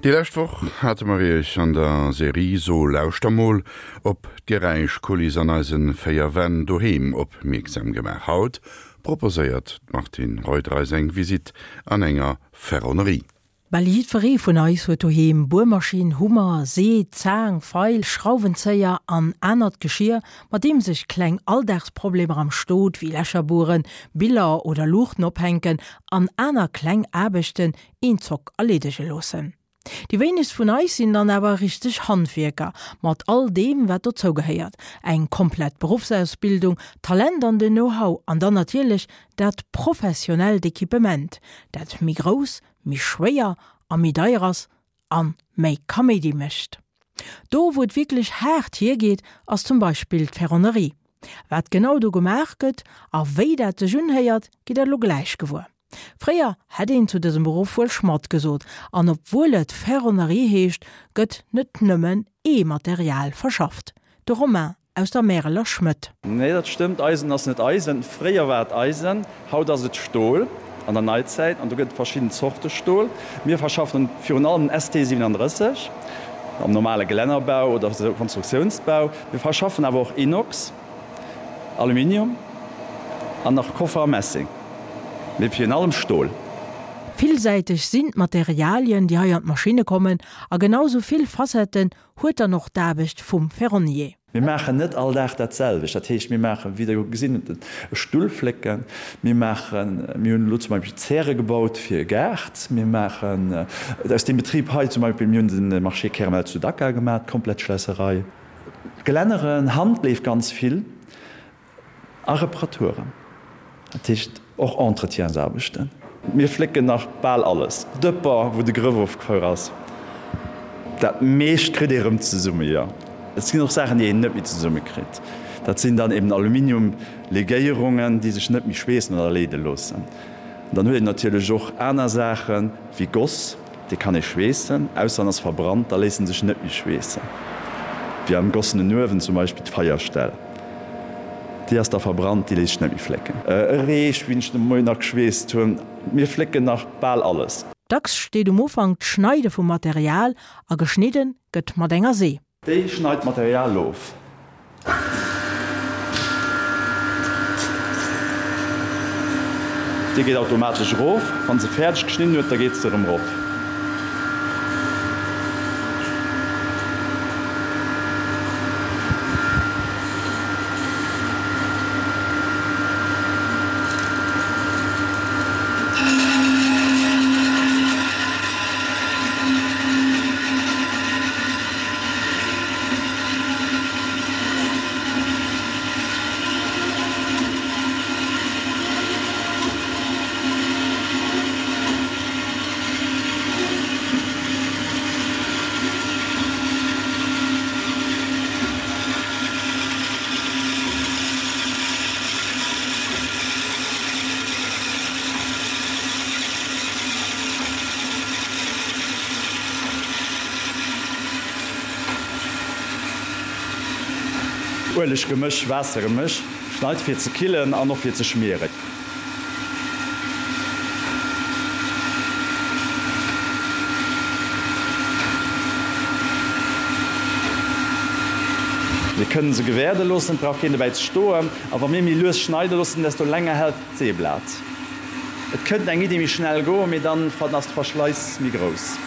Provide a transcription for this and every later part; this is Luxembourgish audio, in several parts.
Déi lescht Woch hate mer Iech an der Serie So lauschter mol op d'Geräischkuliss an eise 4 Wänn doheem opmierksam gemaach. Haut proposéiert d'Martine Reuter eis eng Visitt an enger Ferronnerie. Bal jiddweree vun eis huet doheem Buermaschinn, Hummer, See, Zaang, Feil, Schrauwenzéier an anert Geschier, mat deem sech kleng Alldagsproblemer am Stot wéi Lächer bueren, Biller oder Luuchten ophänken an aner kleng Aarbechten een Zock erleedege loossen. Déi wéinegst vun eis sinn dann awer richteg Handwierker, mat all deem wat dozou gehéiert, eng komplett Beruffsausbildung, Talent an den Know-how an dann natierlech dat professionellt Equipement, dat méi grouss, méi schwéier a méi deier ass an méi Kaméidi mécht. Do wou et wierklech haart hiergeet ass zum Beispill d'Ferronnerie. Wat genau do gemaach gëtt a wéi dat sech unhéiert, gitt der elo gläich gewuer. Fréier hätt een zu dësem Beruff wuel Schmadd gesot, an obwuel et Ferronnerie heescht, gëtt net nëmmen ee Material verschafft. De Romain aus der Märeler Schmëdd. Nee, dat stëmmt, Eisen ass net Eisen. Fréier war et Eisen, haut ass et Stol an der Neizäit an do gëtt et verschidden Zorte Stol. Mir verschaffen virun allem den ST 37 am normale Gelännerbau oder Konstruktiounsbau. Mir verschaffen awer och Inox. Aluminium an nach Koffer a Messing, mee virun allem Stol. Villsäiteg sinn d'Materialien, déi hei an d'Maschinne kommen, a genau sou vill Facetten huet dann och d'Aarbecht vum Ferronnier. Mir maachen net all Dag dat selwecht. Dat heescht, mir maachen, wéi Der gesinn hutt, e Stull flécken. Mir maachen, mir hunn elo zum Beispill Zäre gebaut fir e Gaart. Mir maachen aus deem Betrib hei zum Beispill, mir hunn de Marché Kermel zu Dakar gemaach, d'komplett Schlässerei. Gelänneren, Handleef ganz vill a Reparaturen, dat heescht och Entretiensaarbechten. Mir flécken nach bal alles, Dëpper wou de Grëff ofgefuer ass, dat meescht kritt ee rëm zesumme, jo. Et sinn och Saachen déi een net méi zesumme kritt, dat sinn dann eben Aluminiumlegéierungen déi sech net méi schweessen oder leede loossen. Dann huet een natierlech och aner Saachen wéi Goss. Dee kann ee schweessen, ausser en ass verbrannt, da léisst en sech net méi schweessen. Wéi am gossenen Uewen zum Beispill d'Feierstell, déi ass da verbrannt, déi léisst sech net méi flécken. E Reech, wéi ech de Moien nach geschweesst hunn. Mir flécken nach bal alles. Dacks steet um Ufank d'Schneide vum Material a geschnidde gëtt mat enger See. Déi schneit d'Material of. Déi geet automatesch erof. Wann se fäerdeg geschnidden huet, da geet se erëm erop. Ueleggemësch, Waassergemësch, schneit fir ze killen an och fir ze schmieren. Mir kënnen se gewäerde loossen, et brauch keen dobäi ze stoen. A wa mir méi lues schneide loossen, desto länger hält d'Seeblat. Et kënnt eng Iddi méi schnell goen, mee dann ass de Verschleiss méi grouss.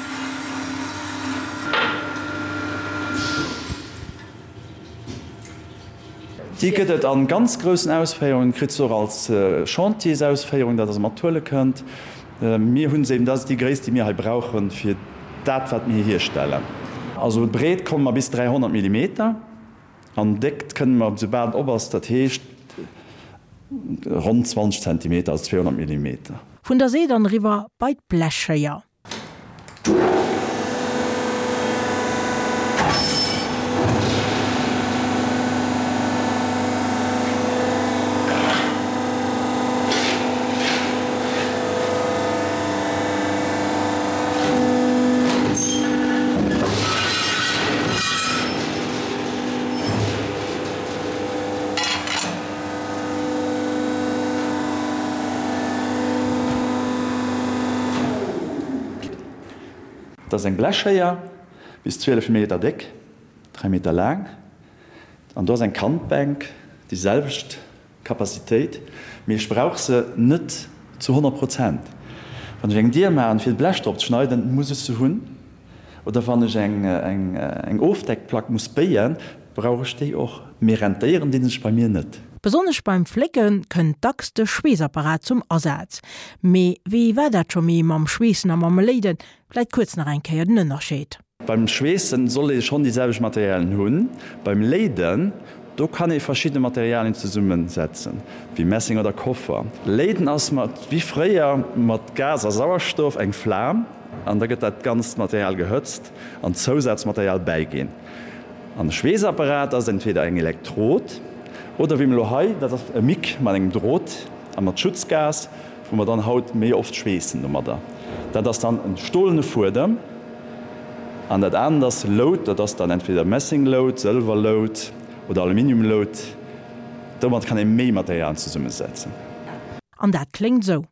Déi gëtt et an ganz groussen Ausféierungen, kritt se och als Chantiersausféierung, dat der se mat huele kënnt. Mir hunn se eben, dat ass déi Gréisst déi mir hei brauchen fir dat wat mir hierstellen. Also breet komme mer bis 300 Millimeter. An Déckt kënne mer, soubal et op ass, dat heescht ronn 20 Zentimeter, also 200 Millimeter. Vun der See dann eriwwer bei d'Blechschéier. Dat ass eng Blechschéier, bis 12 Meter déck, 3 Meter laang. An do ass eng Kantbänk, déi selwecht Capacitéit, mee ech brauch se net zu 100 Prozent. Wann ech eng Dier maachen, fir d'Blech drop ze schneiden, muss ech se hunn. Oder wann ech eng Ofdeckplack muss béien, brauch ech déi och. Mee rentéieren dinn sech bei mir net. Besonnesch beim Flécke kënnt dacks de Schweessapparat zum Asaz. Mee wéi war dat scho méi mam Schweessen a mam Léiden? Vläit kuerz nach eng Kéier den Ënnerscheed. Beim Schweessen soll ee schonn déi selwecht Materialien hunn. Beim Léiden, do kann ee verschidde Materialien zesummen setzen, wéi Messing oder Koffer. Léiden ass mat, wéi fréier, mat Gas a Sauerstoff eng Flam an da gëtt dat ganzt Material gehëtzt an Zousazmaterial bäiginn. An e Schweessapparat ass entweder eng Elektrod oder wéi mir elo hei, dat ass e Mic mat engem Drot a mat Schutzgas, wou mer dann haut méi oft schweessen domadder. Dat ass dann e stolene Fuedem an dat anert ass Lout, dat ass dann entweder Messinglout, Sëlwerlout oder Aluminiumlout. Domat kann ee méi Materialien zesummesetzen. An dat kléngt esou.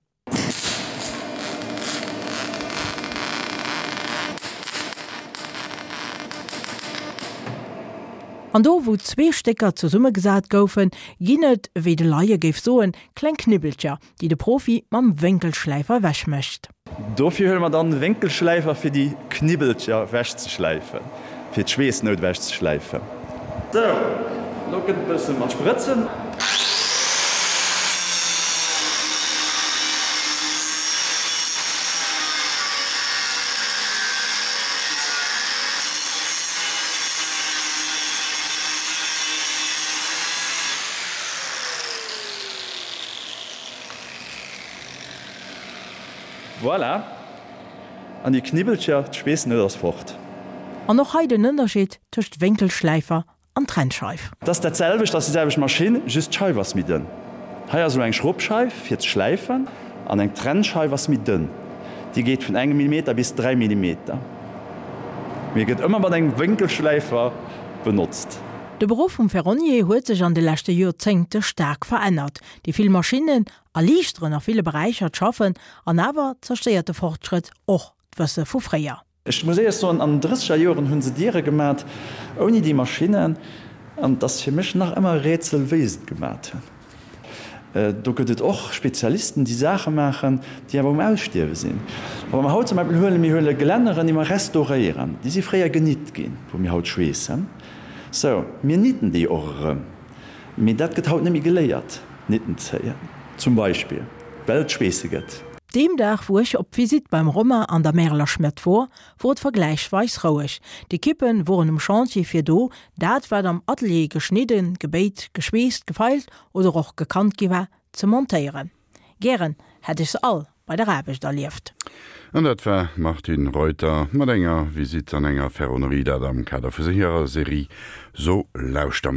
An do wou zwee Stécker zesummegesat goufen, ginn et, wéi de Laie géif soen, kleng Knibbelcher, déi de Profi mam Wénkelschläifer ewech mécht. Dofir huele mer dann de Wénkelschläifer fir déi Knibbelcher ewech ze schläifen, fir d'Schweessnout ewech ze schläifen. Sou, lo gëtt e bësse mat Sprëtzen. Voilà! An déi Knibbelcher, d'Schweessnout ass fort. An och hei den Ënnerscheed tëscht Wénkelschläifer an Trennscheif. Et ass dat selwecht, ass déi selwecht Maschinn, just d'Scheif ass méi dënn. Hei ass elo eng Schrubbscheif fir ze schläifen an eng Trennscheif ass méi dënn. Déi geet vun engem Millimeter bis 3 Millimeter, mee gëtt ëmmer mat engem Wénkelschläifer benotzt. De Beruff vum Ferronnier huet sech an de leschte Joerzéngte staark verännert. Déi vill Maschinnen erliichteren a ville Beräicher d'Schaffen, an awer zerstéiert de Fortschrëtt och d'Wësse vu fréier. Ech muss éierlech soen, an den drësseger Joren hu se Diere gemat ouni déi Maschinnen, an et ass fir mech nach ëmmer e Rätsel, wéi se et gemat hunn. Do gëtt et och Spezialisten, déi Saache maachen, déi awer um Ausstierwe sinn. A wa mer haut zum Beispill huelen, mir huele Gelänneren, déi mer restauréieren, déi si fréier genitt ginn, wou mir haut schweessen. Sou, mir nitten déi och erëm. Mee dat gëtt haut net méi geléiert, Nitten zéien zum Beispill, well et Schweesse gëtt. Deem Dag wou ech op Visitt beim Romain an der Märeler Schmëtt wor, wor et vergläichsweis roueg. D'Ekippen woren um Chantier fir do dat wat am Atelier geschnidden, gebéit, geschweesst, gefeilt oder och gekannt gi war, ze montéieren. Gären hätt ech se all bei der Aarbecht erlieft. An dat war d'Martine Reuter mat enger Visitt an enger Ferronnerie, dat am Kader vu hirer Serie So lauschter mol.